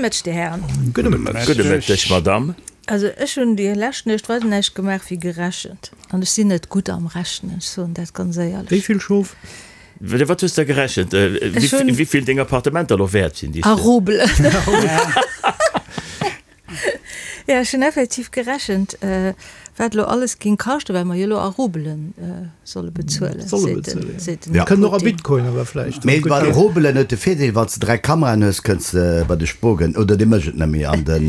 Mëtteg, Dir Hären. Gudde Mëtteg. Gudde Mëtteg, Madame. Also ech hunn déi lescht Nuecht weider näischt gemaach wéi gerechent. An ech sinn net gutt am Rechnen, ech soen dat ganz éierlech. Wéi vill Schof? Wat hues de gerechent? Wéi vill deng Appartementer elo wäert sinn? A Rubel. Jo, ech hunn effektiv gerechent, wat elo alles géing kaschten, well mer jo elo a Rubelen solle bezuelen, seet den, seet den Kënnt och a Bitcoin awer vläicht. Mee bei de Rubelen huet de Virdeel, wann s de 3 Kameraen hues, kënns de bei de Spogen, oder dee mécht et net méi, an de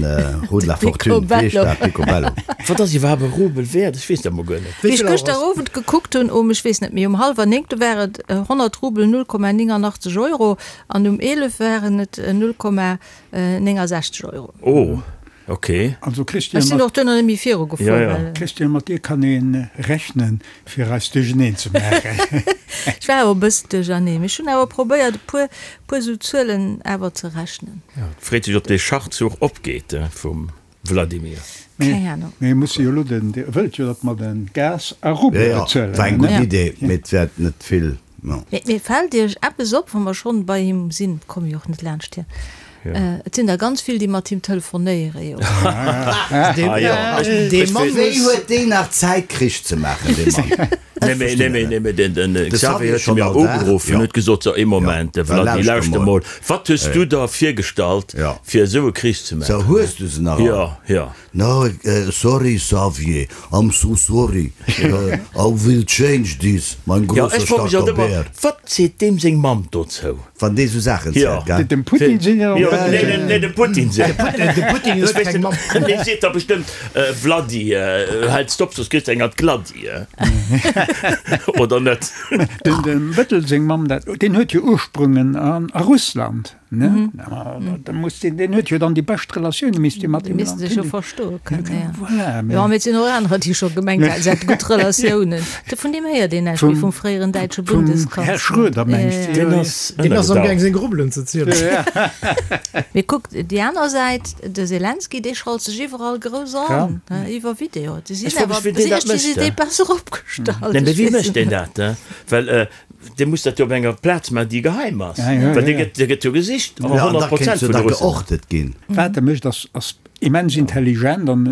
Rue de la Fortune, wéi heescht dat, Picobello. Wat ass iwwerhaapt e Rubel wäert? Ech weess dat mol guer net. Wéi ech gëschter Owend gekuckt hunn, um, ech weess net méi, um hallwer 9, do war et 100 Rubel 0,89 Euro an um 11 waren et 0,69 Euro. Oh, ok. Also Christian, Ech sinn och duerno net méi viru gefuer, Ja, ja. well. Christian, mat dir kann ee rechnen, fir eis duercheneen ze maachen. Ech war awer e bëssen duercherneen, mee ech hunn awer probéiert, e puer, puer esou Zuelen awer ze rechnen. Ja, et freet sech, ob dee Schachzuch opgeet vum Vladimir. Keng Ahnung. Mee muss jo elo den, Dir wëllt jo, datt mer de Gas a Rubel Jo, bezuelen, war eng gutt ne? Idee, mee et wäert net vill. Mee mee fält Iech eppes op, wa mer schonn bei him sinn, komme jo och net laanscht hien, et sinn der ganz vill, déi mat him telefonéiere jo. Dee Mann Wéi huet deen nach Zäit Krich ze maachen, dee Mann? Nee mee, nee mee, nee mee, den, den De Xavier Xavier huet schonn mir all Dag, ugeruff jo. an huet gesot, so ee Moment, Jo, da Vladi, lauschter lauschter mol. mol, wat hues du der virgestallt, Jo. fir esou e Krich ze So, maachen? hues du se nach all? Jo, jo. No, sorry Xavier, I'm so sorry, I will change this, mein Jo, grosser ech froe mech alt starker ëmmer, Bär. wat seet deem seng Mamm dozou? Wann dee sou Saachen Jo. zielt, gell? Dem Putin seng jo Jo, net. nee, nee, nee, dem Putin seng. De Putin huet keng Mamm. Dee seet da bestëmmt, Vladi, hältst op, soss kriss de eng an d'Gladdi, oder net? Dem Bëttel seng Mamm, dat, deen huet jo Ursprüngen a Russland. Ne? Da muss deen, deen huet jo dann déi bescht Relatioune misst jo mat Déi deem missten Land sech jo hunn. verstoe kënnen, ja. Voilà, Jo, mee et sinn och anerer, déi scho gemengt haten, se hätte gutt Relatiounen. De vun deem héiert een näischt méi, vum fréieren däitsche Vum Här Bundeskanzler. Schröder mengs de? Deen ass Deen ass amgaang ënnergedaucht. seng Rubelen ze zielen. Mee kuckt, déi aner Säit, de Selenskyj, dee schalt sech iwwerall grouss an, iwwer Video. Déi Ech sinn fro mech, awer, wéi deen si dat ech, déi si mécht. déi besser opgestallt. Nee, mee Ech wéi weess mécht et deen net. dat? Well Dee muss dat jo op enger Plaz maachen, déi geheim ass. Ja, ja, Well dee ja. gëtt, dee gëtt jo gesicht, Ja, an da 100 kéint Prozent jo vun da de Russen. geortet ginn. Wat e mécht, ass, ass immens intelligent an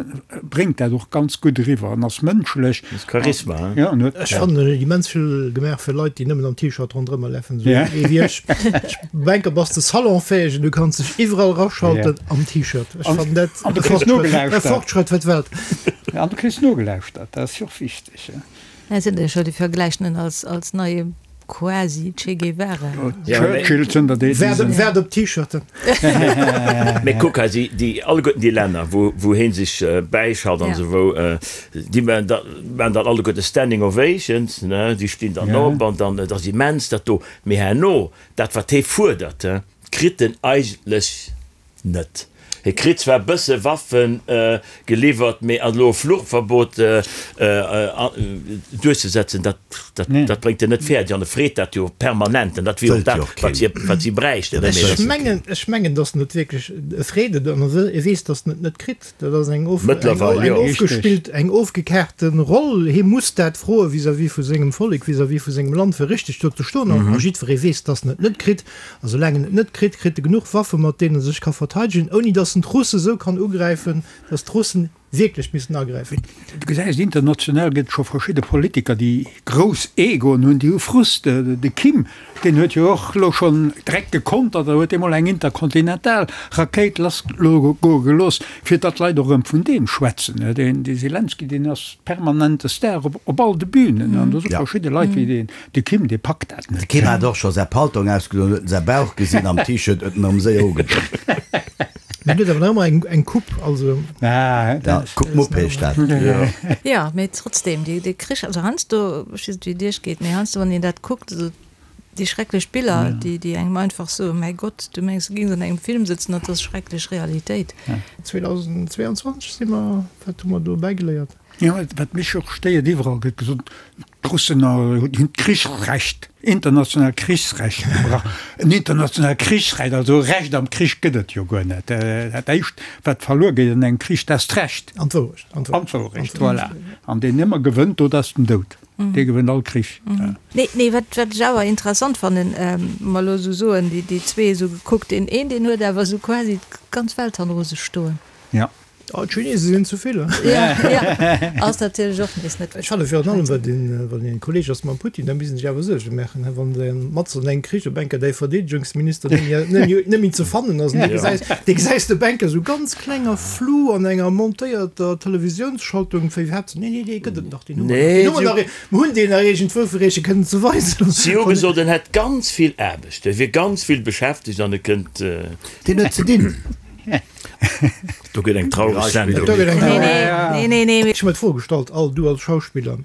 bréngt dat och ganz gutt eriwwer an ass mënschlech. Ass Charisma, hein? Ja, an huet. Ech fannen, en huet immens vill gemaach fir Leit, déi nëmmen am T-Shirt ronderëmmer lafen, esou Ja. ee wéi ech. Ech denken, bass de salonfäeg en du kanns dech iwwerall rasschalten am T-Shirt. Ech An- fannen dat an du e kriss Fortschrëtt, e nogelauschtert. Fortschrëtt fir d'Welt. Ja, an du kriss nogelauschtert, dat ass jo och wichteg. Et sinn der jo scho, déi vergläichen en als, als neie quasi Che Guevara. Churchill zënter deem. Waart, waart op d'T-Shirten. Mee kuck hei, si, déi alleguerten déi Länner, wou, wou hee sech bäischalt an esou, wou, déi maachen da, maachen dann alleguerte Standing Ovations, ne, déi stinn dann op an dann, et ass immens dat do. Mee herno, dat wat hee fuerdert, kritt en eigentlech Net. Hie kritt zwar e bësse Waffe geliwwert, mee elo e Fluchverbot duerchzesetzen, dat, dat bréngt en net fäerdeg. An e freet dat jo permanent. An dat wier och dat, wat si, wat si bräichten. Ech mengen, ech mengen, datt en et wierklech, e freet et an e weess, datt en et net kritt. Dat ass eng of, eng ofgespillt, eng ofgekaarte Roll. Hie muss dat froe vis-à-vis vu sengem Vollek, vis-à-vis vu sengem Land, fir richteg do ze stoen. A jiddweree weess, datt en et net kritt. A soulaang en et net kritt, kritt e genuch Waffe mat deenen e sech ka verteidegen, ouni datt en d'Russe sou kann ugräifen, datt d'Russen wierklech missten agräifen. Du gesäis, international gëtt et scho verschidde Politiker, déi grouss Egoen hunn, déi hu Frust. De Kim, deen huet jo och elo schonn direkt gekontert a huet eemol eng interkontinental Rakéit lassgoe gelooss, fir datt d'Leit och erëm vun deem schwätzen. Dee Selenskyj, deen ass permanent de Star op all de Bünen an do si verschidde Leit wéi deen De Kim, dee packt dat De net. Kim hat och scho säi Paltong ausgedoen, huet en säi Bauch gesinn am T-Shirt, huet en erëm séier ugedoen. Mee en huet awer nach ëmmer eng, eng Coupe, also. Ah, Ja, dat. Coupe Mupp heescht dat. Jo, mee trotzdem, dee, dee Krich, also heiansdo, ech weess net wéi et iech geet, mee heiansdo wann een dat kuckt, esou déi schrecklech Biller, déi, déi engem einfach soen, mäi Gott, du mengs du géings an engem Film sëtzen, dat ass schrecklech Realitéit. 2022 si mer, wat hu mer do bäigeléiert? Jo, wat mech och stéiert, iwwerall gëtt gesot, d'Russen hunn d'Krichsrecht, internationaalt Krichsrecht gebrach. En internationaalt Krichsrecht, also e Recht am Krich gëtt et jo guer net. Dat éischt, wat verluer geet an engem Krich, dat ass d'Recht. An d'Wourecht. An d'Wourecht, voilà. An deen ëmmer gewënnt, do, dat ass den Doud. Dee gewënnt all Krich. Nee, nee, wat, wat ech awer interessant fannen, mer elo esou soen, déi, déi zwee esou gekuckt, deen een, deen huet awer esou quasi d'ganz Welt hanneru sech stoen. Ja. Oh, d'Chinese sinn zu vill, he? Ja, ja, ass natierlech och nees net. Ech fannen virun allem, wat een, wann een Kolleg ass mam Putin, da misst en sech awer Suerge maachen, he, wann de matzen an engem Krich op enker däi Verdeedegungsminister net méi, net méi, net méi ze fannen ass, an dee gesäis, dee gesäis de op enker esou ganz kleng a flou an enger montéierter Televisiounsschaltung, wéi iwwerhaapt Nee, nee, dee gëtt et nach, deen hu mer nach. Deen hu mer nach, mer hunn deen nach iergendwou, fir Iech e kënnen ze weisen. Si hu gesot, en hätt ganz vill Aarbecht, e wier ganz vill beschäftegt an e kënnt. Deen huet ze dinn. Do gëtt eng traureg Sendung. Do gëtt eng traureg. Nee, nee, nee, nee. Ech hu mer d'Fro gestallt, all du als Schauspiller,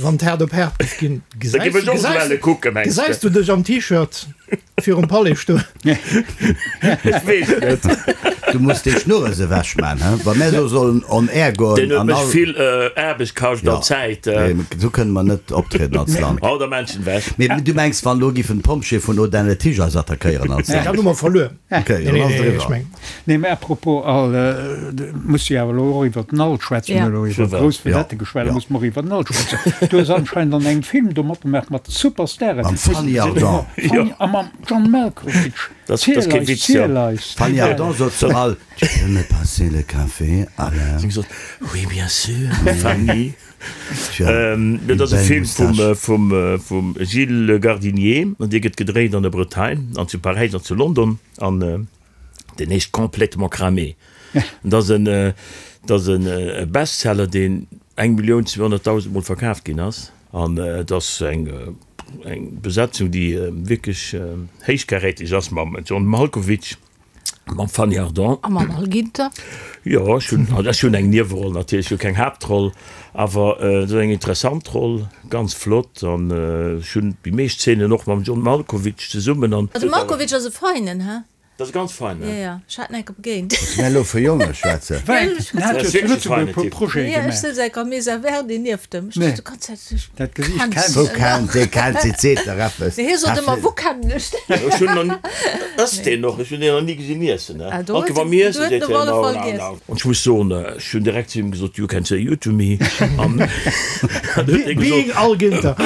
wann et haart op haart géif ginn, gesäis du dech am T-Shirt? Virum Palais stoen. Ech weess et net. Du muss déi Schnurres ewech man, he? Wa mär elo sollen on air goen Deen huet an mech all. vill Aarbecht kascht an Zäit. Nee, esou kënne mer net optrieden als Land. Hau der Menschen ewech. Mee du mengs, wann elo giffen d'Pompjeeë vun Audun-le-Tiche eis attackéieren als Land? Dann hu mer verluer. Okay, dann ass et eriwwer. Nee, mä à propos Al, muss jo awer elo och iwwer den Al schwätzen. Mir hu elo iwwer grouss Vedette geschwat, da muss mer och iwwer den Al schwätzen. Du hues anscheinend an engem Film do matgemaach mat Superstaren. Mam Fanny Ardant. Fanny a mam John Malkovich. Dat ass kee Witz, jo. Ziel eis. D'Fanny Ardant sot zum Al, Tu peux me passer le café, Alain? Si gesot, Oui, bien sûr, Fanny. Dat ass e Film vum, vum Gilles Le Gardinier an dee gëtt gedréit an der Bretagne an zu Paräis an zu London an. Deen heescht Complètement cramé. Dat ass en, dat ass en Bestseller, deen 1.200.000 Mol verkaaft ginn ass. An et ass eng, eng Besetzung, déi wierklech héichkaräteg ass, mam John Malkovich, mam Fanny Ardant. A mam Al Ginter. Jo, ech hunn, also ech hunn eng Nieweroll natierlech, ech hu keng Haaptroll, awer et ass eng interessant Roll, ganz flott. An ech hunn déi meescht Zeenen och mam John Malkovich zesummen an. De Malkovich ass e Feinen, he? Dat ass e ganz feinen. Jo, jo, ech hat en enke begéint. Muss mär elo fir Jonge schwätzen? Well en hat jo zu Lëtzebuerg e puer Projete gemaach. Jo, ech souz enke am Mesa Verde nieft em. Ech duecht déi ganz Zäit, ech Dat Gesiicht kenn kennt. Wou kennt dee kennt si seet der eppes. Mee hie sot ëmmer, Wou kennen ech deen? Ech hunn nach ni, ësst deen och? Ech hunn deen nach ni gesinn iessen, ne? Ah, do Anke huet wa mir iessen, do huet seet en op hien, alle no, Fall no, giess. no. An ech muss soen, ech hunn direkt zu him gesot, You can say you to me. An dann huet hie gesot. Being Al Ginter.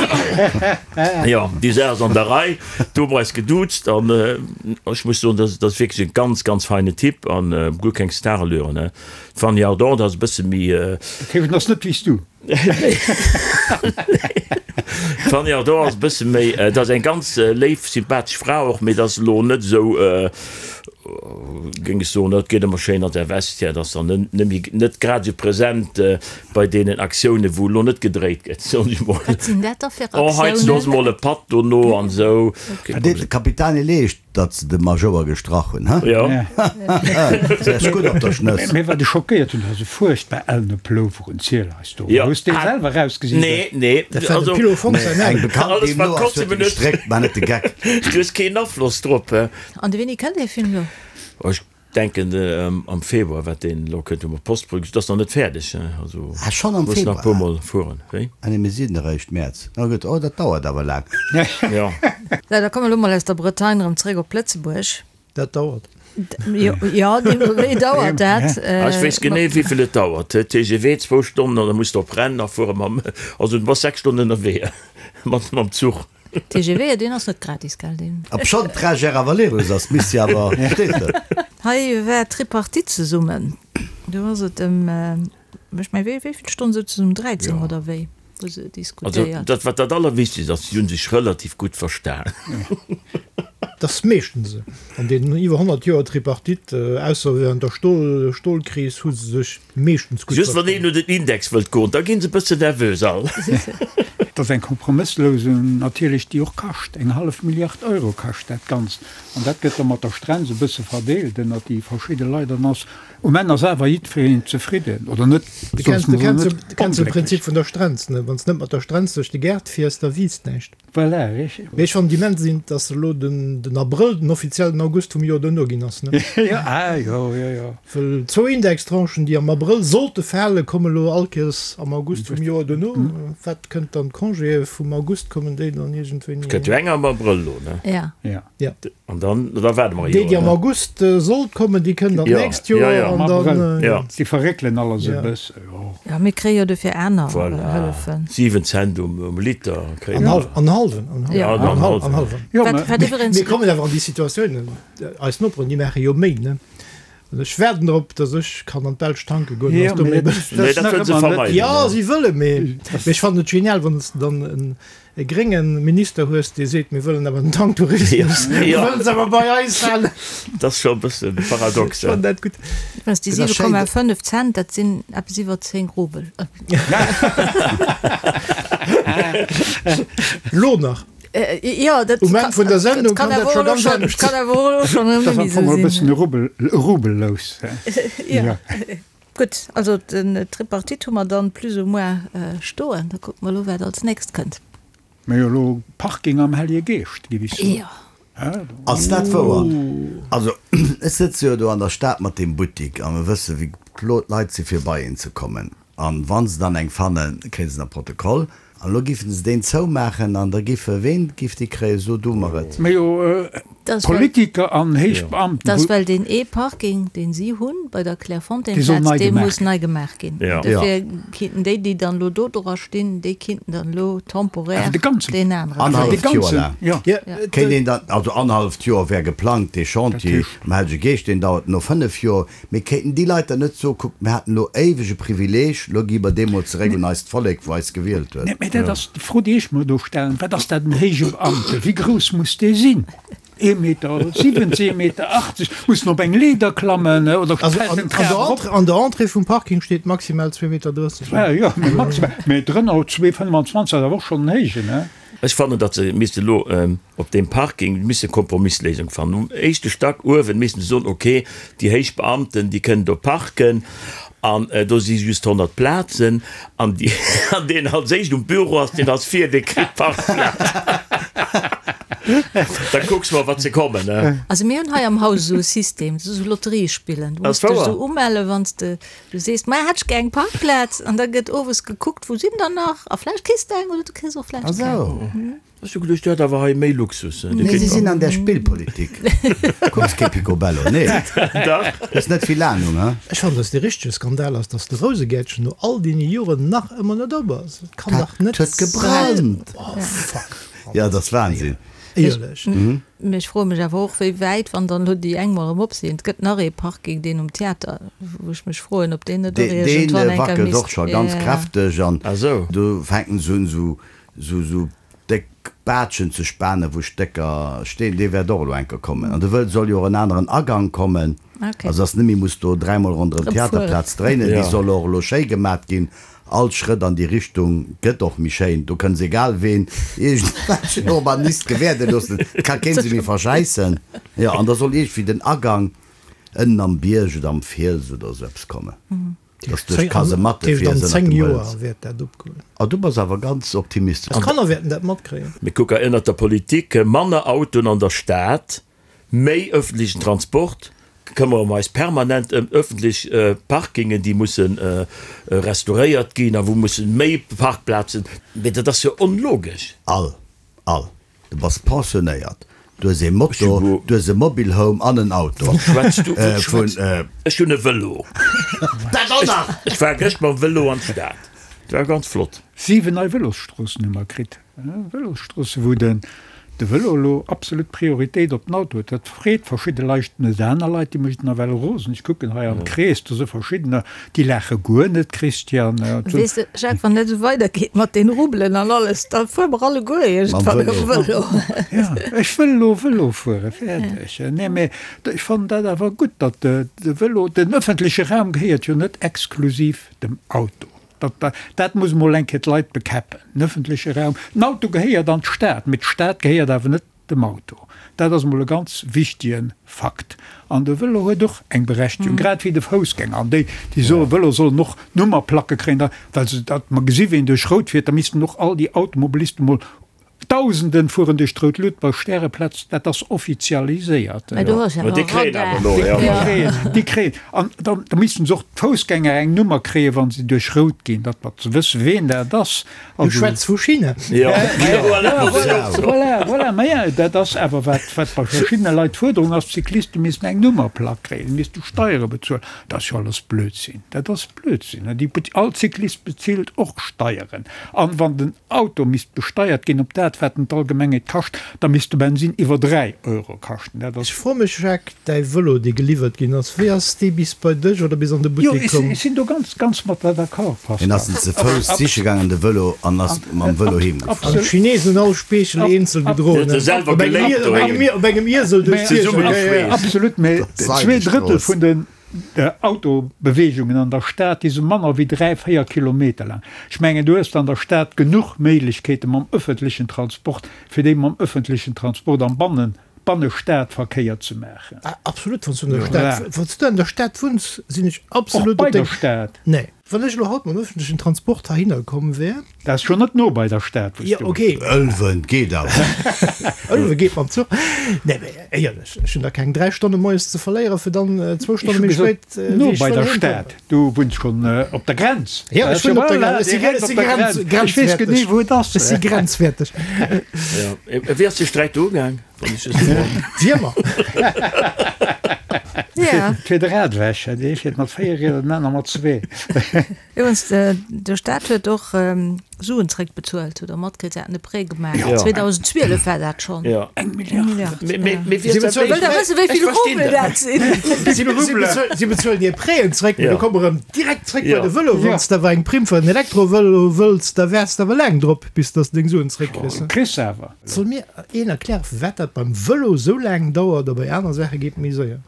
Jo, déi Saach ass an der Rei. Do hu mer eis geduuzt an ech muss soen, dat ass wierklech e ganz, ganz feine Typ an guer keng Starallüren, ne. D'Fanny Ardant ass e bësse méi. Dat heescht, en ass net wéi s du? Nee. D'Fanny Ardant ass e bësse méi, dat ass eng ganz léif, sympathesch Fra och, mee dat ass elo net esou, géing ech soen, dat geet ëmmer schéin an der Vestiaire, dat ass dann net méi, net grad esou present bei deenen Aktiounen, wou elo net gedréit gëtt, soen ech mol. Wat sinn dat da fir Oh, hei Aktiounen? ass mol e Patt dono an esou. Wat deet de Capitani leescht, datt se de Majouer gestrach hunn, he? Jo. Se ass gutt op der Schnëss. Mee wat ech schockéiert hunn, dat ass e fuerchtbar ellene Plover un Ziel eis do. Jo. Hues dee selwer erausgesicht? Nee, nee. Dat war dem Also, Pilo Fonck säin Eng Aarbecht. Bekannt, alles déi wat elo ass, huet Kostümen e huet, gestréckt, mä net de Geck. du hues keen Afloss drop, he? An de wéini kënnt dee Film lo? Ech denken am Februar, wat deen elo kënnt, hu mer d'Postproduktioun, dat ass nach net fäerdeg, also Ah, schonn am muss nach e puer Februar? Mol fueren. Wéi? Ah nee, mir sinn eréischt Mäerz. Na gutt, oh, dat dauert awer laang. Jo. Sou, da komme mer elo mol aus der Bretagne erëm zréck op Lëtzebuerg. Dat dauert. Jo, jo, deemno wéi dauert dat. Ah, ech weess genee, wéi vill et dauert. TGV zwou Stonnen an da muss de op Rennes nach fuere mam, also du bass 6 Stonnen ënnerwee mat mam Zuch. TGV, deen ass net gratis, gell? Deen. Obschonn d'Trager awer Lerus ass, misst si awer, verstees de? Hei war d'Tripartite zesummen. Do ass et ëm, ech mengen, wéi vill Stonn souzen se? Um 13 oder wéi hu se Also diskutéiert. dat, wat dat Allerwichtegst ass, si hu sech relativ gutt verstan. Dat ass meeschtens esou. An deenen iwwer 100 Joer Tripartite, ausser während der Stol, Stolkris, hu se sech meeschtens gutt Just wann een verstanen. un den Index wëllt goen, da ginn se e bëssen nervös all. Dat ass eng Kompromësslousung natierlech, déi och kascht. Eng hallef Milliard Euro kascht dat Ganzt. An dat gëtt da mat der Strenz e bësse verdeelt ënnert déi verschidde Leit. An ass, um Enn ass awer jiddwereen zefridden, oder net? Du Soss kenns, du muss kenns, net du kenns de onglécklech. Prinzip vun der Strenz, ne? Wann s net mat der Strenz duerch de Gaart fiers, da wiisst näischt. Voilà, richteg. Mee ech fannen immens int, dass elo den den Abrëll den offiziellen August vum Joer duerno ginn ass, ne? Jo, ah jo, jo, jo. Well zwou Indextranchen, déi am Abrëll sollte falen, komme elo all Kéiers am August vum Joer duerno. Wat kënnt dann? Congéë vum August kommen déi dann iergendwéini. Et kënnt jo eng am Abrëll elo, ne? Ja. Ja. Ja. An dann, da waarde mer e Déi, déi Joer, am ne? August sollt kommen, déi kënnen dann Ja, d'nächst ja, Joer ja. an Am dann, Abrëll. Ja. Si verréckelen alles e Ja. bësse, jo. Ja, mir kréie jo dofir aner Voilà. Hëllefen. 7 Cent um, um Liter kréie An mer. hal, an hallwen, an Ja. hallwen, Ja, an an hallwen. hallwen. Jo, Wat, mä wat iwwerens. Mir kommen awer an déi Situatioun, eis Noperen, déi maache jo méi, ne? An ech waarden drop, datt ech kann an d'Belsch tanke goen, Jo, ass do mee méi dat bëlleg. Nee, ass dat nach wëllen se ëmmer net. vermeiden, Jo, ne? si wëlle, mee mee ech fannen et genial, wann s de dann en e grénge Minister hues, dee seet, mir wëllen awer den Tanktourismus, mir Ja. wëllen se awer bei eis halen. Dat ass scho e bësse paradox, Ech fannen hè? dat gutt. Iwwerens, déi Et ass schéin, 7,5 Cent, dat sinn eppes iwwer 10 Rubel. Lo nach. Jo, dat Um Enn vun der Sendung kann dat scho ganz anescht kann awer och elo schonn Dat ass net am méi Fong esou e bëssen sinn. e Rubel, e Rubel-lous, hè? Jo. Gutt, also den Tripartite hu mer dann plus ou moins stoen. Da kucke mer elo, wat als nächst kënnt. Mä jo, elo Parking am Hellege Geescht, géif ech soen. Jo. Ass dat wouer? Also, ech sëtze jo do an der Stad mat deem Buttik a mir wësse wéi blo d'Leit si fir bei een ze kommen. An wa se dann eng fannen, kréie se na Protokoll. An elo giffen se deen zoumaachen an da giffe, ween giff déi kréien? So du mer et. Mä jo, Politiker an héich Beamten. Dat ass well deen ee Parking, deen si hunn bei der Dee soll Clairefontaine-Plaz, nei dee gemaach muss ginn. nei gemaach ginn. Dofir kinnten déi, déi dann elo do dra stinn, déi kinnten dann elo temporär Awer de ganzen, deen aneren. Annerhalleft de Joer ganzen, laang. jo. Kéint een dann, also annerhalleft Joer wär geplangt, dee Chantier um Hellege Geescht, deen dauert no 5 Joer. Mee kéinten déi Leit dann net soen, kuckt, mir haten elo éiweg e Privileeg, elo gi mer dee mol zeréck un eist Vollek, wou eis gewielt huet? Mä dat ass déi Fro, déi ech mer do stellen, Wat ass dat en héije Beamte? Wéi grouss muss dee sinn? Ee Meter 70, ee Meter 80? Muss en op eng Leeder klammen oder Also fält an en d'Trap der erop? Entrée, an der Entrée vum Parking steet maximal 2,30 Meter. Ja, jo, mee maximal. Mee drënner 2,25 ass awer och schonn en héijen, ne? Ech fannen, datt se misste elo op deem Parking misse Kompromisléisung fannen. Um éischte Stack uewen missten se soen, ok, déi héich Beamten, déi kënnen do parken an do si just 100 Plazen an déi, an deen als éischt um Büro ass, deen ass vir, dee kritt d'Parkplaz. Da kucks mol, wat se kommen, ne? Also mir hunn hei am Haus esou e System, dat ass esou Lotterie spillen. Du Ass muss dech wouer? esou umellen, wann s de Du sees, Maja, hätt ech gär eng Parkplaz. An da gëtt owes gekuckt, wou sinn der nach? A vläicht kriss de eng oder du kriss och vläicht keng. Ech hu geduecht, Dir hätt awer hei méi Luxus. Nee, si sinn an der Spillpolitik. Kucks kee Picobello, nee? Dach. Hues net vill Ahnung, he? Ech fannen, dass dee richtege Skandal ass, dass de Rousegäertchen no all deene Joren nach ëmmer net op ass. Et kann dach net Dat huet gebrannt! Oh, fuck! Ja, dat ass Wahnsinn. Éierlech. Mee ech froe mech awer och, wéi wäit, wann dann elo déi eng mol erëm op sinn, et gëtt nach ee Parking, deen um Theater, wou ech mech froen, ob deen net och Deen iergendwann eng Kéier wackelt misst. och scho ganz kräfteg an do fänken se un esou esou déck Baatschen ze spanen, wou Stécker stinn. Dee wäert och elo eng Kéier kommen. An do wëll soll jo och en aneren Agang kommen, also dass net méi muss do dräimol ronderëm d'Theaterplaz dréinen. Déi soll och elo schéi gemat ginn. All Schrëtt an déi Richtung gëtt och méi schéin. Do kënns egal ween iergendwelchen Urbanist gewäerde loossen, et ka keen se méi verschäissen. Jo, an da soll iergendwéi den Agang ënnen am Bierg oder am Fiels oder esou eppes kommen, dass du duerch d'Kasematte An fiers ënnert 10 dem Joer Hëls. wäert dat opgoen. Oh, du bass awer ganz optimistesch. Eis Kanner wäerten dat matkréien. Mir kucke ënnert der Politik manner Autoen an der Stad, Méi öffentlechen Transport, këmmere mer eis permanent ëm öffentlech Parkingen, déi musse restauréiert ginn a wou mussen méi Parkplazen, mee dat ass jo onlogesch. All, all. Du bass pensionéiert, du hues ee Moto, du hues e Mobile Home an en Auto. Wat schwätz du? Wat schwätz? Ech hunn e Vëlo. Dat och nach! Ech war gëscht mam Vëlo an d'Stad. Dat war ganz flott. 7 nei Vëlosstroossen hu mer kritt. Vëlosstroosse wou den de Vëlo elo absolut Prioritéit op den Auto huet. Dat freet verschidde Leit net, aner Leit déi mécht nawell rosen. Ech kucken hei am Krees, do si verschiddener déi laache guer net, Christian. Weess de Jacques, wann dat esou weidergeet mat den Rubelen an alles, da fuere mer alleguer iergendwann erëm Vëlo. Jo, ech wëll elo Vëlo fuere, fäerdeg. Nee, mee ech fannen dat awer gutt, datt de Vëlo, den ëffentleche Raum gehéiert jo net exklusiv dem Auto. Dat, dat muss emol eng Kéier d'Leit bekäppen. Den öffentleche Raum, den Auto gehéiert an d'Stad, mee d'Stad gehéiert awer net dem Auto. Dat ass emol e ganz wichtige Fakt. An de Vëlo huet och eng Berechtigung, grad wéi de Foussgänger. An déi, déi soen, Vëlo sollen och Nummerplacke kréien, da, well se, datt mer gesi ween duerch Rout fiert, da missten och all déi Automobilisten emol. Dausenden fueren duerch d'rout Lut bei Stäreplaz, dat ass offizialiséiert. Mä do ass jo Déi awer kréien Radar. awer elo, ja. Déi kréien, déi kréien. An da, da missten se och d'Foussgänger eng Nummer kréien, wa se duerch rout ginn, datt mer ze wësse ween dat ass. Du Also. schwätz vu China. Ja, voilà, Voilà, voilà, voilà. Mä ja, dat ass awer wat, wat bei verschiddene Leit d'Fuerderung ass, d'Cycliste missten eng Nummerplack kréien, misste Steiere bezuelen. Dat ass jo alles Blödsinn. Dat ass Blödsinn. Déi, all Cyclist bezilt och Steieren. An wann den Auto misst besteiert ginn op dat, wat en d'Allgemengheet kascht, da misst de Bensin iwwer 3 Euro kaschten. Dat ass. Ech froe mech, Jacques, däi Vëlo, dee geliwwert ginn ass, wéi ass dee bis bei dech oder bis an de Jo, Buttek komm? ech sinn do ganz, ganz mat der d'accord, Hien ass Pascal. en ze Fouss siche gaangen, de Vëlo, an ass mam Vëlo heem gefuer. An d'Chinesen hunn all Speechel eenzel gedroen, op engem Iesel duerch d'Géigend. Absolut, mä 2 Drëttel vun den Autobeweegungen an der Stad, déi si manner wéi 3, 4 Kilometer laang. Ech mengen, du hues an der Stad genuch Méiglechkeete mam öffentlechen Transport, fir déi mam öffentlechen Transport am Bannen, Bannestadverkéier ze maachen. Absolut, wann s du an der Stad, wann s du an der Stad wunns, sinn ech absolut Och bei op der deng. Stad. Nee. Wann ech elo haut mam öffentlechen Transport heihinner komm wär. Dat ass scho net no bei der Stad, wou s Jo, du okay. Ëlwen geet awer. Ëlwe geet mam Zuch. Nee, mee éierlech, ech hunn da keng 3 Stonne moies ze verléieren, fir dann zwou Ech Stonne hu méi gesot, spéit, wéi no ech bei wëll der heem Stad. kommen. Du wunns schonn op der Grenz. Jo, ech wunnen op der Grenz. Ech si Direkt ech si op der grenz, Grenz. Ech weess grenzwäerteg. genee, wou et ass. Ech si grenzwäerteg. Ja. Wéi ass de Sträit do ugaang, wann ech just froen? Wiermer. Ja. Fir de Rad ewech. Dee fiert mat 4 Rieder, den aner mat zwee. Iwwregens, de Staat huet och Suen zréckbezuelt, hutt Der matkritt? Se haten e Prêt gemaach, 2012 war dat schonn. Eng Milliard. Wëllt Der wëssen, wéi vill Rubel dat sinn? Si bezuelen hir Prêten zréck, mee du komm erëm direkt zréck bei de Vëlo. Wann s de awer eng Primm fir en Elektrovëlo wëlls, da waars de awer laang drop, bis dass de deng Suen zréckkriss. Kriss se awer. Soll mir een erklären, firwat dat beim Vëlo esou laang dauert a bei aner Saache geet méi séier?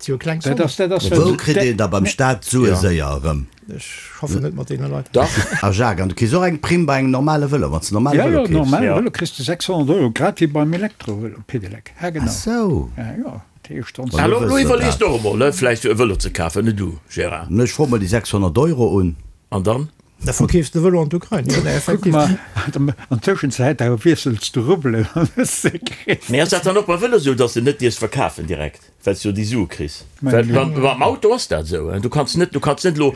Et si jo kleng Dat ass, Sommen. dat ass, Wou kritt een da beim Staat d'Sue séier erëm? Ech schaffen net mat deene Leit. Dach. A Jacques, an du kriss och eng Primm bei engem normale Vëlo, wann s de normale Ja, Vëlo jo, keefs? normale Ja. Vëlo kriss de 600 Euro, grad wéi beim Elektrovëlo, Pedelec. Ja, Ah genau. sou. Ja, jo, dat heescht dann. Wa Elo, lo elo wëss der iwwerlees dat. de och emol, ne, vläicht e Vëlo ze kafen, ne du, Gérard? Ech froe mol déi 600 Euro un. An dann? Da verkeefs de Vëlo an d'Ukrain. Jo, nee, Kuck effektiv. mar, an Tëschenzäit da wiessels de Rubbelen an hues se kritt. Mee ass dat dann och beim Vëlo esou, dass de net dierfs verkafen direkt, well s du jo déi Sue kriss? Well beim Auto ass dat esou, du kanns net, du kanns net elo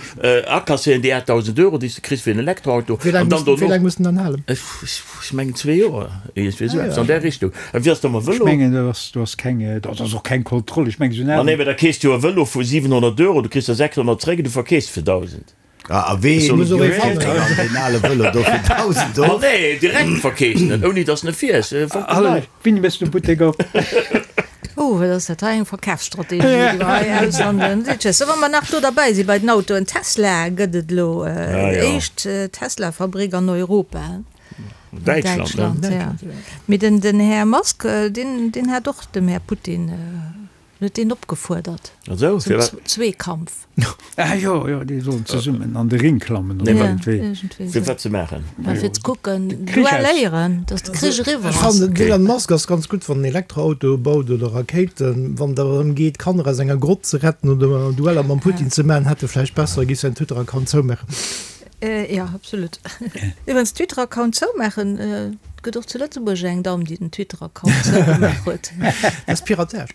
akasséieren déi 8.000 Euro, déi s de kriss fir en Elektroauto, Wéi laang an dann muss, wéi dono, laang muss den dann halen? ech mengen zwee Joer, iergendwéi esou eppes an där Richtung. A wéi ass da mam Ech Vëlo? mengen, do ass, do ass keng, do ass och keng Kontroll. Ech mengen, esou en Ma nee, mä da keefs du jo e Vëlo vu 700 Euro, du kriss der 600 zréck an du verkeefs fir 1.000. A wee keeft dann deen ale Vëlo do fir 1.000 Ma of? nee, direkt verkeeft en, ouni datt en e fiers. Hallo, wéini méchs de Buttek op? Oh, wat ass dat hei eng Verkafsstrategie, déi mer hei aushandeln. Tschëss. Wa mer nach do derbäi si bei den Autoen, Tesla gëtt et elo, déi éischt Tesla-Fabrik an Europa. Däitschland, ne? Däitschland, ja. Mee den Här Musk, deen hat och dem Här Putin En huet deen opgefuerdert zum Zweekampf. Ah jo, jo, déi sollen zesummen an de Ring klammen oder iergendwéi. Fir wat ze maachen? Ma fir ze kucken, duelléieren, datt de Krich eriwwer Ech ass. fannen, den Elon Musk ass ganz gutt, wann en Elektroautoe baut oder Rakéiten. Wann et awer drëm geet, Kanner aus enger Grott ze retten oder Dueller mam Putin ze maachen, hätt e vläicht besser, e géif säin Twitter-Account zoumaachen. Jo, absolut. Iwwerens, Twitter-Account zoumaachen, et gëtt och zu Lëtzebuerg eng Damm, déi den Twitter-Account zougemaach huet. Dat ass Piratage.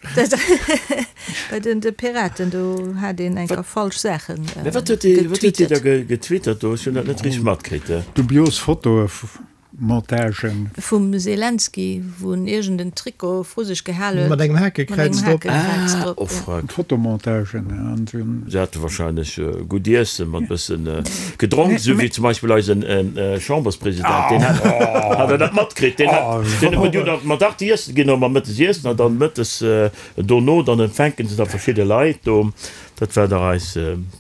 Bei den de Piraten, do hat een eng Kéier falsch Saache Mä wat huet déi, wat huet déi da getwittert do? Ech hunn dat net richteg matkritt. Dubios Fotoe Montagen. Vum Zelensky, wou en iergend en Trikot vru sech gehal huet. Mat engem Hakekräiz drop. Ah, oh fuck. Fotomontagen an esou. Se hate wahrscheinlech gutt Iessen mat bëssen gedronk, esou wéi zum Beispill eisen Chamberspresident. Deen hat, hat Der dat matkritt? Deen hat, deen huet jo dann mat 8 Iessen ginn, mat mëttes iessen an dann mëttes dono dann empfänken se da verschidde Leit do. Dat war dach eis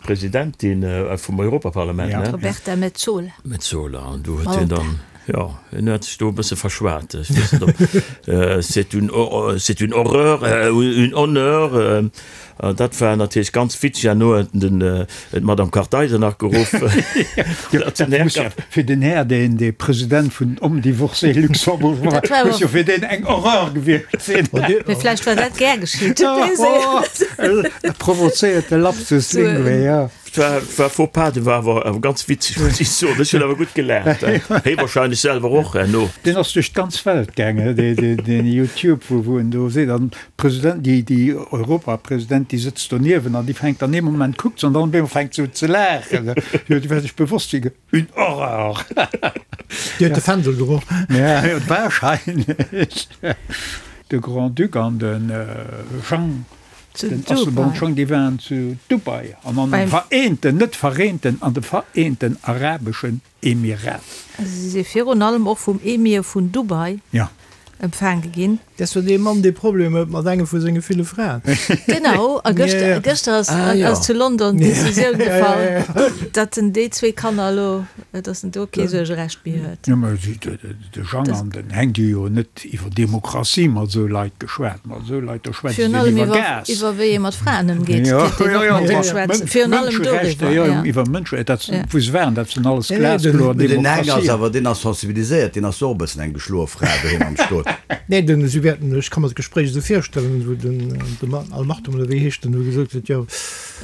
Presidentin vum Europaparlament, ne? Roberta Metsola. Metsola, an do huet hien dann, jo, hien huet sech do e bësse verschwat. Ech weess net, ob c'est une, c'est une horreur ou une honneur. Dat war natierlech ganz witzeg. Herno huet en den, d'Madame Kartheiser nach geruff. Dat muss jo fir den Här, deen dee President vun Homme Divorcé Luxembourg war, muss jo fir deen eng Horreur gewiescht sinn. Mee vläicht war dat gär geschitt. E provozéierte Lapsus linguae, jo. war, war Faux pas, dee war awer, awer ganz witzeg, muss ich soen. Ech hunn awer gutt gelaacht. Hie wahrscheinlech selwer och herno. Deen ass duerch d'ganz Welt gaangen, dee, dee, deen Youtube, wou, wou en do seet, an d'President, déi, déi Europapresident, déi sëtzt doniewen an déi fänkt an ee Moment kuckt se an dann op eemol fänkt se un ze laachen. Jo, déi war sech bewosst, wéi. Une horreur! Déi huet de Fändel geroch. Ja, wahrscheinlech. De Grand-Duc an de Jean, den Asselborn Jean, déi waren zu Dubai an an de Vereenten, net Vereenten, an de Vereenten Arabeschen Emiraten. Si si virun allem och vum Emir vun Dubai empfaange ginn. Dat ass jo dee Mann, dee Problemer huet mat engem vu senge ville Fraen. Genau, a gëschter, gëschter ass, ass zu London d'Decisioun gefall, datt en déi zwee Kanner elo, datt en do kee Suergerecht méi huet. Jo, mä si, de Jang an den Heng, déi hu jo net iwwer Demokratie mat esou Leit geschwat. Mat esou Leit, do schwätzt een iwwer Gas. Iwwer wéi ee mat Fraen ëmgeet, kéint een och mat deem schwätzen. Virun allem doriwwer, jo. Iwwer Mënscherechter, dat, wou se waren, dat sinn alles glaskloer Demokratien. Den Heng ass awer, deen ass sensibiliséiert, deen ass och e bëssen eng geschloe Fra doheem am Stot. Nee, den, si wäerten, ech ka mer d'Gespréich esou virstellen, wou den, de Mann, Al Maktoum oder wéi heescht en, wou gesot huet, jo,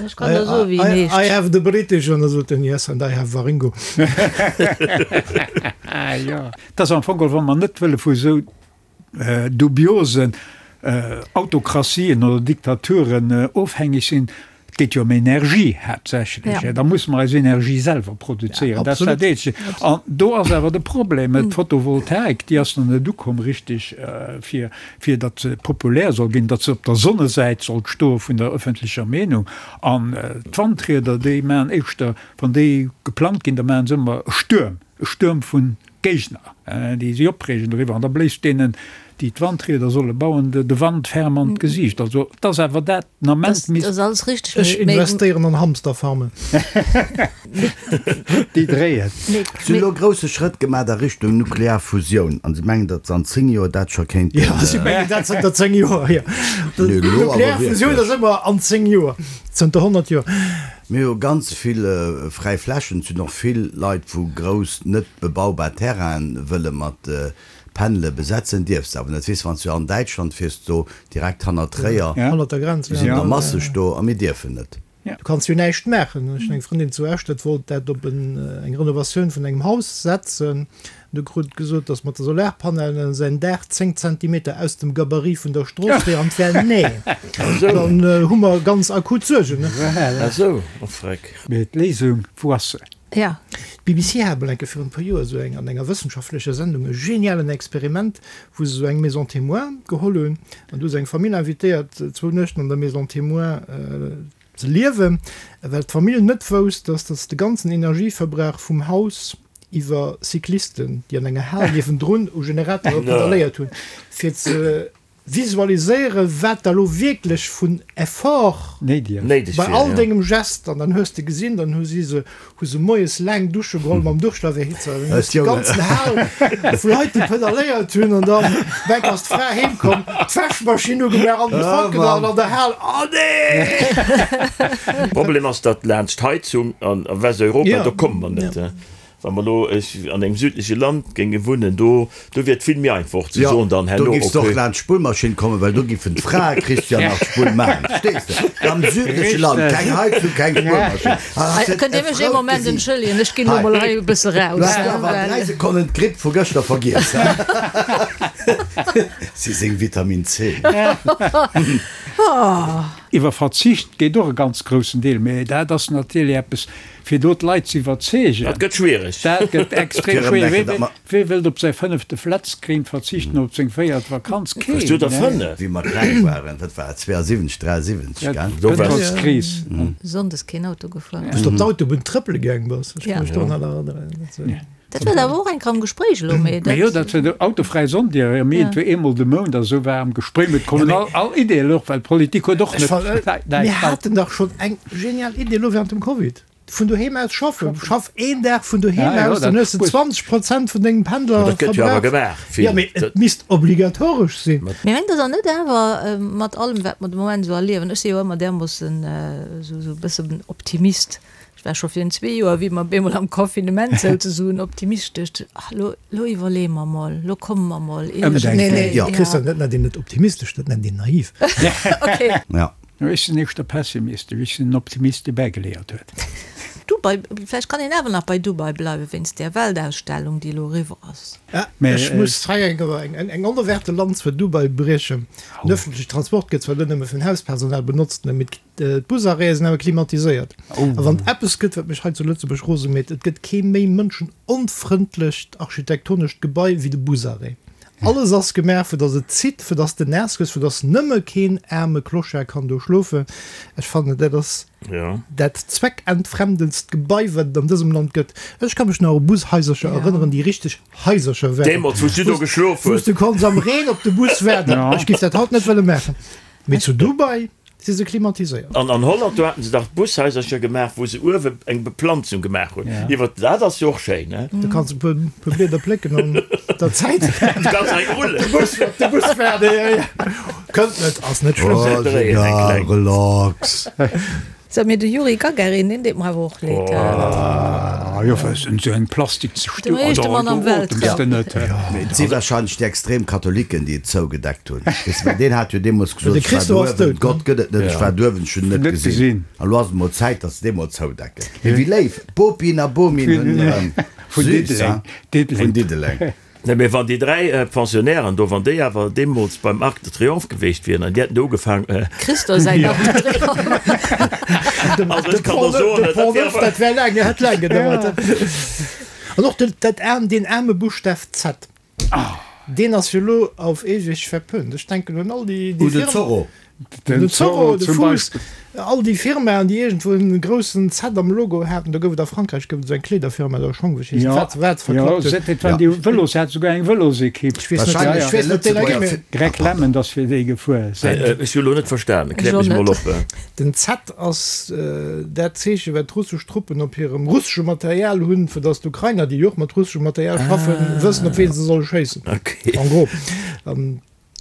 Ech kann der soen, wéi en heescht. I have the British, an da sot en, yes, and I have Waringo. Jo, et ass am Fong geholl, wa mer net wëlle vu esou dubiosen Autokratien oder Diktaturen ofhängeg sinn, et geet jo ëm Energie haaptsächlech, da musse mer eis Energie selwer produzéieren, dat ass dat eenzegt. An do ass awer de Problem, d'Photovoltaik, déi ass nach net ukomm richteg, fir, fir datt se populär soll ginn, datt se op der Sonnesäit sollt stoe vun der ëffentlecher Meenung. An d'Wandrieder, déi maachen éischter, wann déi geplangt ginn, da maachen se ëmmer e Stuerm, e Stuerm vun Géigner, déi si opreegen doriwwer, an da bléist deenen, déi d'Wandrieder solle bauen, de Wand ferm an d'Gesiicht. Also, et ass awer dat den Ament misst. Dat ass alles richteg, mee. Ech investéieren an Hamsterfarmen. Déi dréien. Si hunn elo grousse Schrëtt gemaach a Richtung nuklear Fusioun an si mengen, datt se an 10 Joer dat scho kéinten. Jo, si mengen dat zënter 10 Joer, jo. Nuklear Fusioun ass ëmmer an 10 Joer, zënter 100 Joer. Mir hu ganz vill fräi Flächen. Et sinn och vill Leit, wou grouss net bebaubar Terrainen wëlle mat Panele besetzen. Dierfs de awer net. Weess, wann s du an Däitschland fiers, do direkt hannert Tréier, Hannert der Grenz, déi sinn der masseg do a mir dierfen net. Du kanns jo näischt maachen. Ech hunn eng Frëndin zu Esch, dat wollt dat op eng Renovatioun vun engem Haus setzen. Du krut gesot, dass mat de Solarpanelen säin Daach 10 Zentimeter aus dem Gabarit vun der Strooss wier an d'wär nee. Dann hu mer ganz akut Suergen. Ah sou, oh freck. Mee d'Léisung, wou ass se? Ja. D'BBC hat emol eng Kéier virun e puer Joer esou eng an enger wëssenschaftlecher Sendung e genialen Experiment, wou se esou eng Maison témoin geholl hunn an du hu se eng Famill invitéiert zwou Nuechten an der Maison témoin ze liewen, well d'Famill net wousst, dass dass de ganzen Energieverbrauch vum Haus iwwer Cyclisten, déi an enger Hal niewendrun u Generatore pedalléiert hunn, fir ze visualiséieren, wat da lo wierklech vun Effort bei all dengem Gest, an dann hues de gesinn, dann hu si se, hu se moies laang Dusche geholl mam Duschlaweerhitzer, dann hues de déi ganzen Hal vu Leit, déi pedalléiert hunn, an dann weg ass d'Fra heem komm, d'Wäschmaschinn ugemaach an den Trockener an an der Hal, oh nee! Problem ass, datt laanscht d'Heizung an Westeuropa, do komme mer net. Wa mer elo an engem südleche Land géinge wunnen, do do wier et vill méi einfach och ze soen dann herno, okay. Do giffs de och laanscht d'Spullmaschinn kommen, well do giffen d'Frae, Christian, nach d'Spull maachen. Verstees de? Am südleche Land, keng Heizung, keng Spullmaschinn. Kënnt Dir mech ee Moment entschëllegen, ech ginn elo mol hei e bësse raus. Du has awer an 3 Sekonnen d'Gripp vu gëschter vergiess, he? Si seng Vitamin C. Iwwer Verzicht geet och e ganz groussen Deel, mä dat ass natierlech eppes, Fir do d'Leit ze iwwerzeegen. Dat gëtt schwiereg. Dat gëtt extrem schwiereg. Wee wëllt op säi fënnefte Flatscreen verzichten, op seng véiert Vakanz? Keen. Hues du der fënnef? Wéi mer kleng waren, wat war et, 72, 73, gell? Do war D'Pëtrolskris. Sonndes keen Auto gefuer. Wou s de op d'Autobunn trëppele gaang bass, ech ka mech do nach erënneren. Dat war awer och eng Kéier am Gespréich elo, mee dat. Jo, dat war de autofräi Sonndir, mee et war eemol de Mount a sou war am Gespréich, mee et kommen all, all Ideeën och, well d'Politik huet och net. Mir haten dach schonn eng genial Idee elo während dem Covid, vun doheem aus schaffen. Schaff een Dag vun doheem aus, dann hues de 20 Prozent vun dengem Pendler Dat gëtt jo awer gemaach vill. Jo, mee et misst obligatoresch sinn. Mee mengt Der dann net awer, mat allem wat mer de Moment esou erliewen, ech si jo ëmmer därmoossen esou e bëssen Optimist, Ech war scho virun zwee Joer, wéi mer op eemol am Confinement souzesoen, optimistesch, ach lo, lo iwwerleeë mer mol, lo komme mer mol iergendwéi. Nee, nee, ja. Christian, dat nennt een net optimistesch, dat nennt een naiv. Okay. Ja. Ech sinn éischter pessimistesch, ech sinn en Optimist, dee bäigeléiert huet. Dubai, vläicht kann een awer nach bei Dubai bleiwen, wéinst där Weltausstellung, déi elo eriwwer ass. Ech muss hei eng onerwaarte Lanz fir Dubai briechen. Den ëffentlechen Transport gëtt zwar do nëmme vun Hauspersonal benotzt, mee d'Busarrêtë sinn awer klimatiséiert. A wann et eppes gëtt, wat mech hei zu Lëtzebuerg rose mécht, et gëtt kee méi mënschenonfrëndlecht architektonescht Gebai wéi de Busarrêt. Alles ass gemaach, fir datt et zitt, fir datt s de naass gëss, fir datt nëmme keen aarme Clochard kann do schlofen. Ech fannen, dat ass dat zweckentfremdendst Gebai, wat et an dësem Land gëtt. Ech ka mech nach u Bushaisercher erënneren, déi richteg Haisercher waren. Deemools, wou s du do geschlof hues. Wou s du konns am Reen op de Bus waarden. Ech géif dat haut net wëlle maachen. Mee zu Dubai si se klimatiséiert. An an Holland, do haten se dach Bushaisercher gemaach, wou se uewe eng Beplanzung gemaach hunn. Iwwer, dat ass jo och schéin, ne? Du kanns e puer Blieder plécken an der Zäit. Du kanns eng rullen. Op de Bus waarden, jo, jo. Kënnt net, ass net schlëmm. Oh, egal, relax. Sou, mee de Yuri Gagarin, deen deet mer awer och leed. Ah jo, well esou eng Plastik ze Dem éischte Mann am Weltraum. Mee et si wahrscheinlech déi extrem Katholiken, déi et zougedeckt hunn. Weess de, well deen hat jo deemools gesot, ech war douewen, Gott gëtt et net, ech war douewen, ech hunn en net gesinn. An elo ass et mol Zäit, datt se dee mol zoudecken. Mee wéi léif, Bopin a Bomin hunn erëm. Süß, hein? Vun Diddeleng. Nee, mee wann déi 3 Pensionnairen do, wann déi awer deemools beim Arc de Triomphe geweecht wieren an déi hätten do ugefaang. Christo säin Arc de Triomphe. Also ech kann der soen, dat wär awer. Dat wär laang, hätt laang gedauert. An och den, dat aarm, deen aarme Buschtaf Z, deen ass jo elo auf ewig verpönt. Ech denken un all déi, déi Un den Zorro. Den Zorro, de Fuuss, all déi Firmaen, déi iergendwou en groussen Z am Logo haten. Do gouf et a Frankräich gouf et esou eng Kleederfirma, do Schong, wéi heescht dat, wat se verklappt huet. Dat waren déi Vëlos, se hat souguer eng Vëlosekipp. Ech weess net, ech weess net, deen erginn mir. Greg Lemond ass fir déi gefuer. Ech hu lo net verstanen, kläert mech mol op. Den Z ass dat Zeeche wat d'russesch Truppen op hirem russesche Material hunn, fir datt d'Ukrainer, déi jo och mat russeschem Material schaffen, wëssen op ween se solle schéissen. En gros.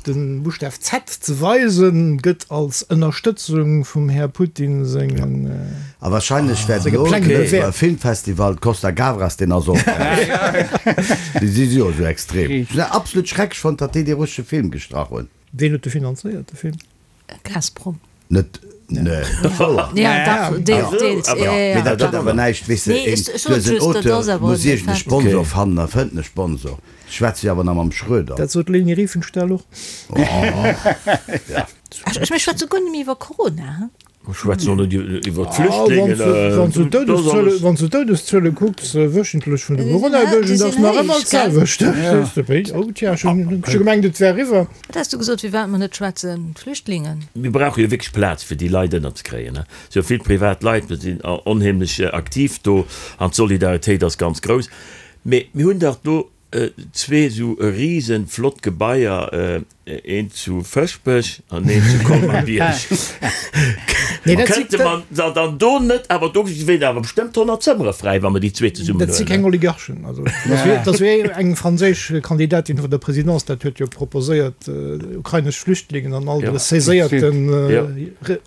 Den Buschtaf Z ze weisen, gëtt als Ënnerstëtzung vum Här Putin sengen A wahrscheinlech wäert senge elo Pläng de bewäert. Filmfestival Costa Gavras, deen ass och Déi si jo esou extrem. Ech hunn dat absolut schrecklech fonnt, datt déi dee russesche Film gestrach hunn. Ween huet de finanzéiert, de Film? Gazprom. Net, nee, wouer? Ja, dach, deels, deels, ja, ja, ja. Mee dat huet awer näischt, weess de, Nee, een, ech, ech du sot hues en just, dat Auteur, ass awer muss e iergend e Fait. Sponsor fannen a fënnt en e Sponsor. Ech schwätze jo awer nach mam Schröder. Dat sot d'Leni Riefenstahl och. Ja. Ech, ech, mir schwätze guer net méi iwwer Corona, he? Mir schwätzen och net iwwer d'Flüchtlingen. Wann s du d'Doudeszuele kucks, wöchentlech vun de Coronadouegen, dat ass nach ëmmer d'selwecht. Oh tja, ech hunn scho gemengt, et wär eriwwer. Wat has du gesot, firwat mer net schwätzen? D'Flüchtlingen? Mir brauche jo wierklech Plaz, fir déi Leit ënnerzekréien. Et si jo vill privat Leit, mir sinn onheemlech aktiv do an d'Solidaritéit ass ganz grouss. Mee mir hunn dach do zwee esou risen flott Gebaier, eent zu Fëschbech an eent zu Colmar-Bierg. Kënnte mer se dann do net, awer do wieren awer bestëmmt 100 Zëmmere fräi, wa mer déi zwee zesummen Dat si keng huelen. Oligarchen. Also dat ass wéi eng franséisch Kandidatin vun der Présidence, dat huet jo proposéiert, ukrainesch Flüchtlingen an all de saiséierten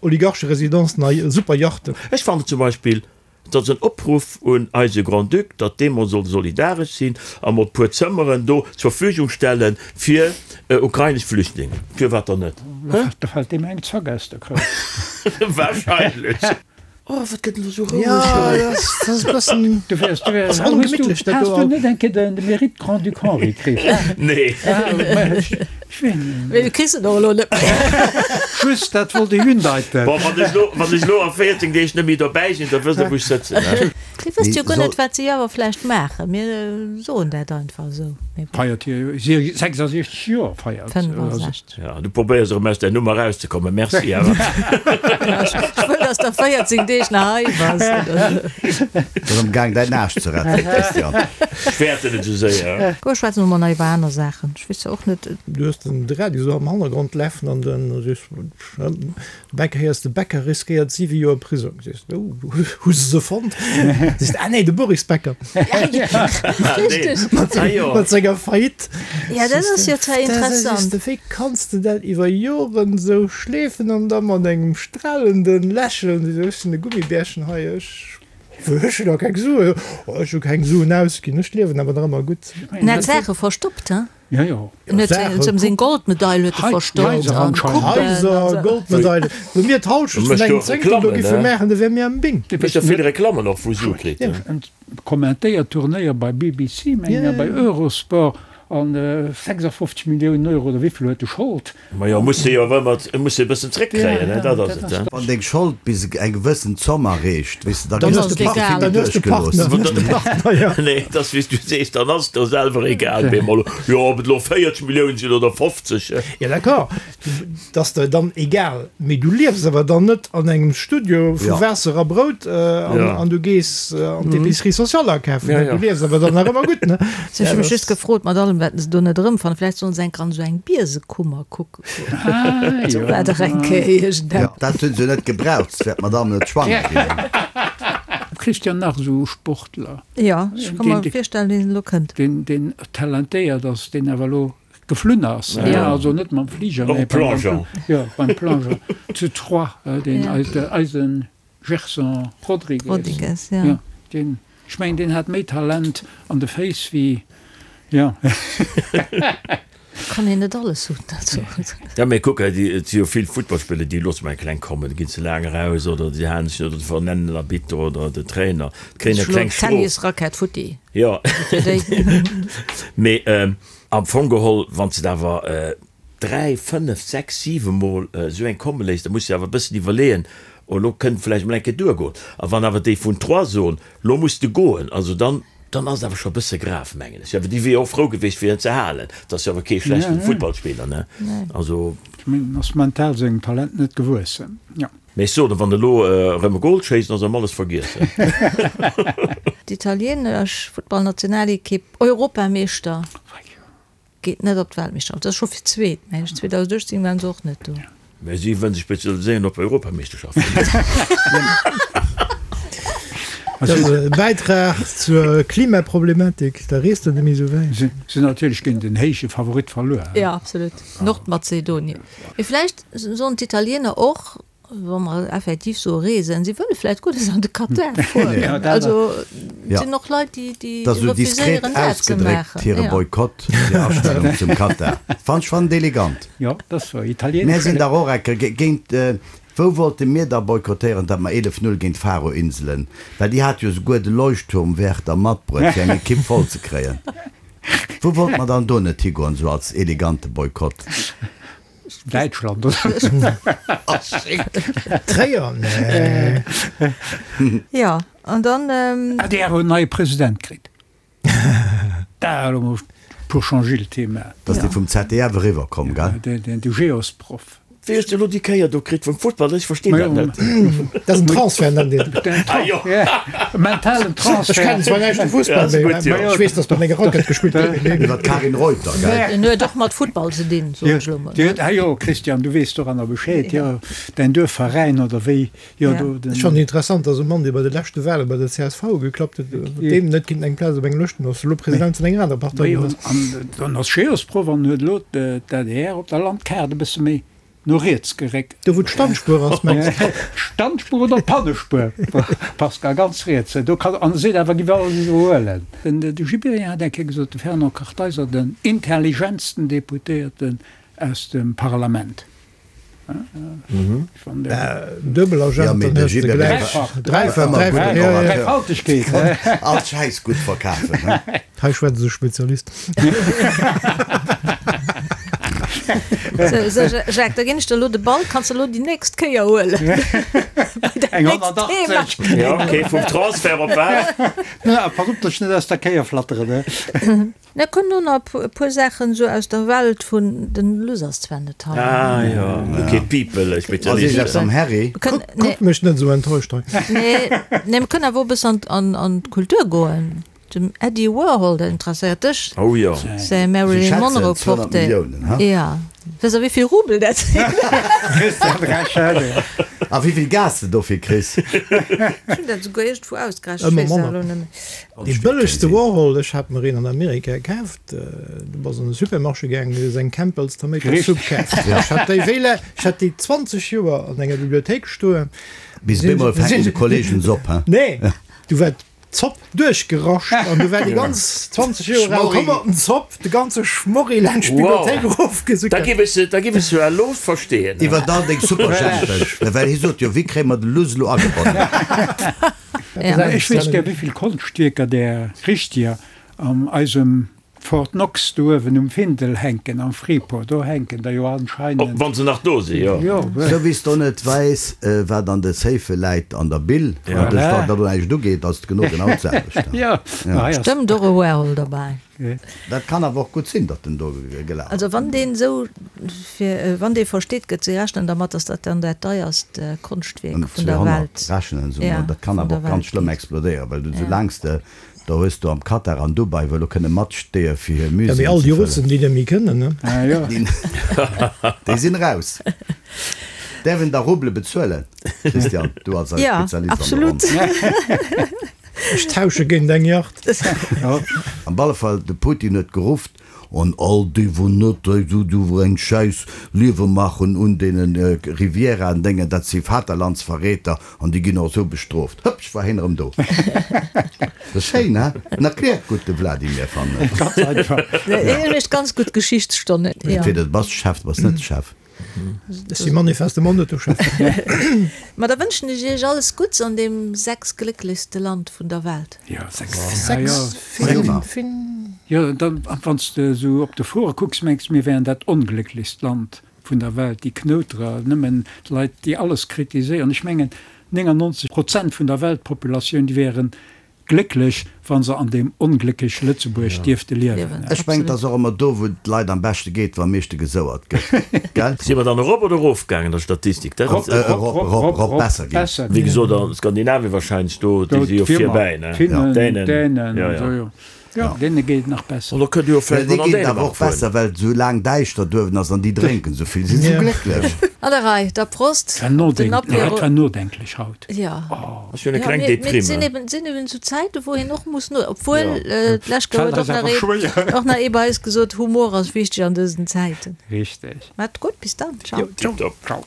Oligarcheresidenzen a Superjachten. Ech fannen zum Beispill Et ass en Opruff un eise Grand-Duc, datt dee mol soll solidaresch sinn a mol e puer Zëmmeren do zur Verfügung stelle fir ukrainesch Flüchtlingen. Firwat dann net? Hä? Da fält deem eng Zack aus der Kroun. Wahrscheinlech. Oh, wat gëtt elo sou roueg hei? Jo, dat ass e bëssen. Du wärst, du wärst. Ass ongemittlech, dat do. Has du net eng Kéier de Mérite Grand-Duc Henri kritt? Nee. Mee du kriss en och elo net méi. Just dat wollt ech undeiten. Bon, wann ech elo, wann ech elo a 14 Deeg net méi dobäi sinn, da wësst der wou ech sëtzen, he? Dir wësst jo guer net wat si awer vläicht maachen. Mir soen dat einfach esou. Mee bon. Feiert hir 66 Joer feiert. 65. Ja, du probéiers erëm aus där Nummer erauszekommen. Merci awer. Ech wëll, dass der 14 Deeg nach hei bass. Ass am Gaang däin Aarsch ze retten, Christian. Ech fäerten et esou séier. Goh, schwätze mer mol nach iwwer aner Saachen. Ech weess jo och net. Du hues den Radio esou am Hannergrond lafen an dann sees Becker héiers de Becker riskéiert 7 Joer Prisong. Sees de, oh, hu se se fonnt? Sees de, ah nee, de Boris Becker. Richteg. Mat senger Faillite. Ja, dat ass jo zwar interessant. Sees de, wéi kanns de dat iwwer Joren esou schleefen an da mat engem stralenden Lächeln, sees de, ech sinn e Gummibärchen hei, ech ech hunn nach keng Suen, oh ech hu keng Suen ausginn, ech liewen awer nach ëmmer gutt. En hat Saache verstoppt, he? Jo, jo. En huet seng, seng Goldmedail huet e verstoppt an Coupen. Haiser, Goldmedaile. Wou mir d'Halschent vun engem Zéngtel do giffe maachen, da wäre mir am Bing. Mécht jo vill Reklammen och wou Sue kritt. En kommentéiert Turnéier bei BBC, mengen ech, a bei Eurosport. An 56 Milliounen Euro oder wéivill huet e Schold? Majo, muss se jo awer ëmmer, muss se e bëssen zréckkréien, ne, dat ass et. Wann deng Schold bis eng gewëssen Zomm erreecht, weess de, da gëss de Partner duerchgelooss. Nee, et ass wéi s du sees, dann ass et der selwer egal, bemol, jo, ob et elo 40 Milliounen sinn oder 50. Jo, d'accord. 't ass der dann egal, mee du liefs awer dann net an engem Studio vu Waasser a Brout an du gees an d'Épicerie sociale akafen. Du liefs awer dann nach ëmmer gutt, ne? Ech hu mech just gefrot, mat allem wat se do net erëmfannen, vläicht sollen se enker an esou eng Biesekummer kucke goen. Do war dach eng Kéier iergendeppes. Dat hunn se net gebraucht, s wär d'Madame net schwanger ginn. Christian, nach esou Sportler. Jo, ech ka mer virstellen, wien elo kënnt. Deen talentéiert ass, deen awer elo Geflunn ass, also net mam Fliger, mee beim Plongeon zu Troyes, deen eise Gerson Rodrigues, jo, deen, ech mengen, deen hat méi Talent an de Féiss wéi, jo. Kann een net alles hunn, also. Jo, mee kuck, et si jo vill Futtballspiller, déi loosse mer eng kleng kommen, da ginn se laang eraus oder déi halen sech net oder vernennen den Arbitter oder den Trainer, kréien eng kleng Strof. Tennisrackett futti. Jo, mee Am Fong geholl, wann s de awer 3, 5, 6, 7 Mol esou eng komme léiss, da muss de awer e bëssen iwwerleeën, oh elo kënnt vläicht emol eng Kéier duergoen. A wann awer déi vun Troyes soen, lo muss de goen, also dann, dann ass et awer scho e bësse grav, mengen ech. Awer déi wier jo och frou gewiescht, fir en ze halen. Et ass jo awer kee schlechten Futtballspiller, ne? Also. Ech mengen, en ass mental sengem Talent net gewuessen, jo. Mee ech soen, wann elo erëm e Gol schéisst, ass erëm alles vergiessen. D'italieenesch Futtballnationalekipp, Europameeschter, geet net op d'Weltmeeschterschaft. Dat ass scho fir d'zweet, mengen ech. 2018 waren se och net do. Mä si wëllen sech spezialiséieren op Europameeschterschaften. Dat ass e Bäitrag zur Klimaproblematik, da reest der net méi esou wäit. Si hunn natierlech géint en héije Favorit verluer. Jo, absolut. Nordmazedonien. Mee vläicht Sollen d'Italiener och, wa mer effektiv soe reesen, si wëlle vläicht guer net an de Katar fueren. Also et sinn och Leit, déi déi Dat ass esou diskret refuséieren dat ze ausgedréckt, maachen. hire Jo. Boykott, hir Astellung zum Katar. Fannt ech fannt elegant. Jo, dat ass wouer. Mär Italienesch sinn dach och ecke géint, wou wollte mir da boykottéieren, datt mer 11, 0 géint d'Faroe-Inselen, well déi hate jo souguer de Leuchtturmwärter matbruet, fir eng Ekipp voll ze kréien. Wou wollte mer dann do net higoen, esou als elegante Boykott? Däitschland oder? Tréier, nee. Jo, an dann. Adr huet en neie President kritt. Da elo mol pour changer le thema. Dat ass dee vum ZDF eriwwer komm, gell? De Geosproff. Wéi hues de elo déi Kéier do kritt vum Futtball? Ech verstinn dat net. Dat ass en Transfert, nennt een dat. Ah jo. E mentalen Transfert. Ech kennen zwar näischt vum Fussball, mee ech weess, datt mat enger Rackett gespillt gëtt. Iwwer d'Karin Reuter, gell? En huet och mat Futtball ze dinn, soen ech elo mol. Ah jo, Christian, du weess doranner Bescheed. Jo, däin Duerfveräin oder wéi? Jo, do den. Ech fannen interessant, datt e Mann, dee bei de leschte Wale bei der csv geklappt huet, deem net kéint eng Plaz op engem Lëschten ass, elo President vun enger anerer Partei ginn ass. An dann ass Geosproff an huet elo d'ADR op der Landkaart e bësse méi No riets geréckt. Do wou d'Standspuer ass, mengs de? D'Standspuer oder d'Pannespuer, Pascal, ganz riets. Do kann, an e seet awer, giff alles iwwerhuelen. Den de Gibéryen hat eng Kéier gesot, de Fernand Kartheiser, den intelligentsten Deputéierten aus dem Parlament. Duebel Agent, dann hues de gläich dräifach, dräifach, jo, jo. Dräifaltegkeet. All Schäiss gutt verkafen, he? Hei schwätzt e Spezialist. Sou, sou, Jacques, da ginn ech der elo de Ball, kanns de elo déi nächst Kéier huelen. Eng 180. Ja, okay, vum Transfert op wat? Na, pass op, dass ech net aus der Kéier flatteren, ne? Mir kënnen elo nach e puer Saachen esou aus der Welt vun, den Luss ass zwar net hei. Ah jo, okay, People, Ass iergendeppes am Harry? Kuck mech net esou enttäuscht hei. Nee, nee, mir kënnen awer och e bëssen an, an d'Kultur goen. Dem Eddie Warhol, dat interesséiert dech. Oh jo. Säi Marilyn Monroe Portrait. Ja. Weess der wéivill Rubel dat sinn? Christian Rechel. A wéivill Gas de dofir kriss. Ech hunn dat esouguer iergendwou ausgerechent, ech weess et elo net méi. Dee bëllegste Warhol, ech hat mer een an Amerika kaaft, du bass an de Supermarché gaangen, du hues eng Campbell's Tomato Soup kaaft. Ech hat déi wéi la, ech hat déi 20 Joer an enger Bibliothéik stoen. Bis bemol fänken de Kollegen se op, he? Nee, du war. Zopp duerchgerascht an du war déi ganz 20 Joer al Tomatenzopp, de ganze Schmorri laanscht d'Bibliothéik erofgesuckert. Da giff ech se, da giff ech se jo elo verstehen. Iwwer all deng Superjhempesch, well hie sot jo, wéi kréie mer de Luss elo agebonnen? Ech wéisst gär, wéivill Konschtwierker där richtiger an eisem Fort Knox do uewen um Findel hänken, am Freeport, do hänken der jo anscheinend. Wann se nach do si, jo. Sou wéi s de och net weess, wat an de Safe läit an der Bill, wat dech dat elo näischt ugeet, ass et genau genau d'selwecht. Stëmmt och e Warhol derbäi. Dat kann awer och gutt sinn, datt en do gelaf ass. Also wann deen esou fir, wann dee versteet gëtt, si rechnen dermat, datt dat dann dat deierst Konschtwierk vun der Welt, 200 rechnen se emol. Dat kann awer och ganz schlëmm explodéieren, well du soulaang s de Da hues du am Katar an Dubai wou elo kënne matsteeë fir hir Muséeën ze fëllen. Ja, mee all déi Russen, déi net méi kënnen, ne? Déi sinn eraus. Däerf een da Ruble bezuelen, Christian, du als eis Ja, Spezialist an der absolut. Ronn? Ech tausche géint eng Yacht. Am alle Fall, de Putin huet gerufft, An all déi wou net esou eng Schäiss Liewe maachen un deenen Rivieraen Déngen, dat si Vaterlandsverräter an déi ginn och esou bestrooft. Hëppsch war heen erëm do. Dat ass schéin, he? En erkläert gutt, de Vladimir, fannen ech. Ganz einfach. Hien mécht ganz gutt Geschichtsstonnen. Entweder du bass Chef, du bass net Chef. Ech si manifestement net de Chef. Ma da wënschen ech iech alles Gutts an deem sechsglécklechste Land vun der Welt. Jo, sechs, ja. Jo, dann, wann s de esou op de Foren kucks, mengs de, mir wären dat onglécklechst Land vun der Welt, déi Knouterer, nëmmen Leit, déi alles kritiséieren. Ech mengen, 99 Prozent vun der Weltpopulatioun, déi wären Glécklech, wa se an deem onglécklech Lëtzebuerg dierfte liewen. Ech mengen, et ass och ëmmer do, wou et de Leit am beschte geet, wou am meeschte gesouert gëtt, gell? Si mer dann erop oder erofgaangen an der Statistik? Dat ass. Erop, erop, erop, besser ginn. Wéi gesot, a Skandinavien wahrscheinlech, do, déi si jo virbäi, ne? Finnen, Dänen, jo, jo. Jo, deene geet et nach besser. An da kënnt Dir jo vläicht Déi mol an geet et awer Dänemark och besser, fueren. well et esou laang däischter duerwen ass an déi drénken esou vill, sinn esou glécklech. An der Rei, da Prost War op den nodenk, Apéro. dat war nodenklech haut. Jo. Ass jo eng Jo, kleng mee, mee et Deprime. sinn eben, sinn eben esou Zäiten, wou een och muss no, obwuel, Jo. d'lescht Kéier D'Feld huet ass och nach awer ee, schwéier. och nach ee bei eis gesot, Humor ass wichteg an dësen Zäiten. Richteg. Maat gutt, bis dann, ciao. Tipptopp. Ciao.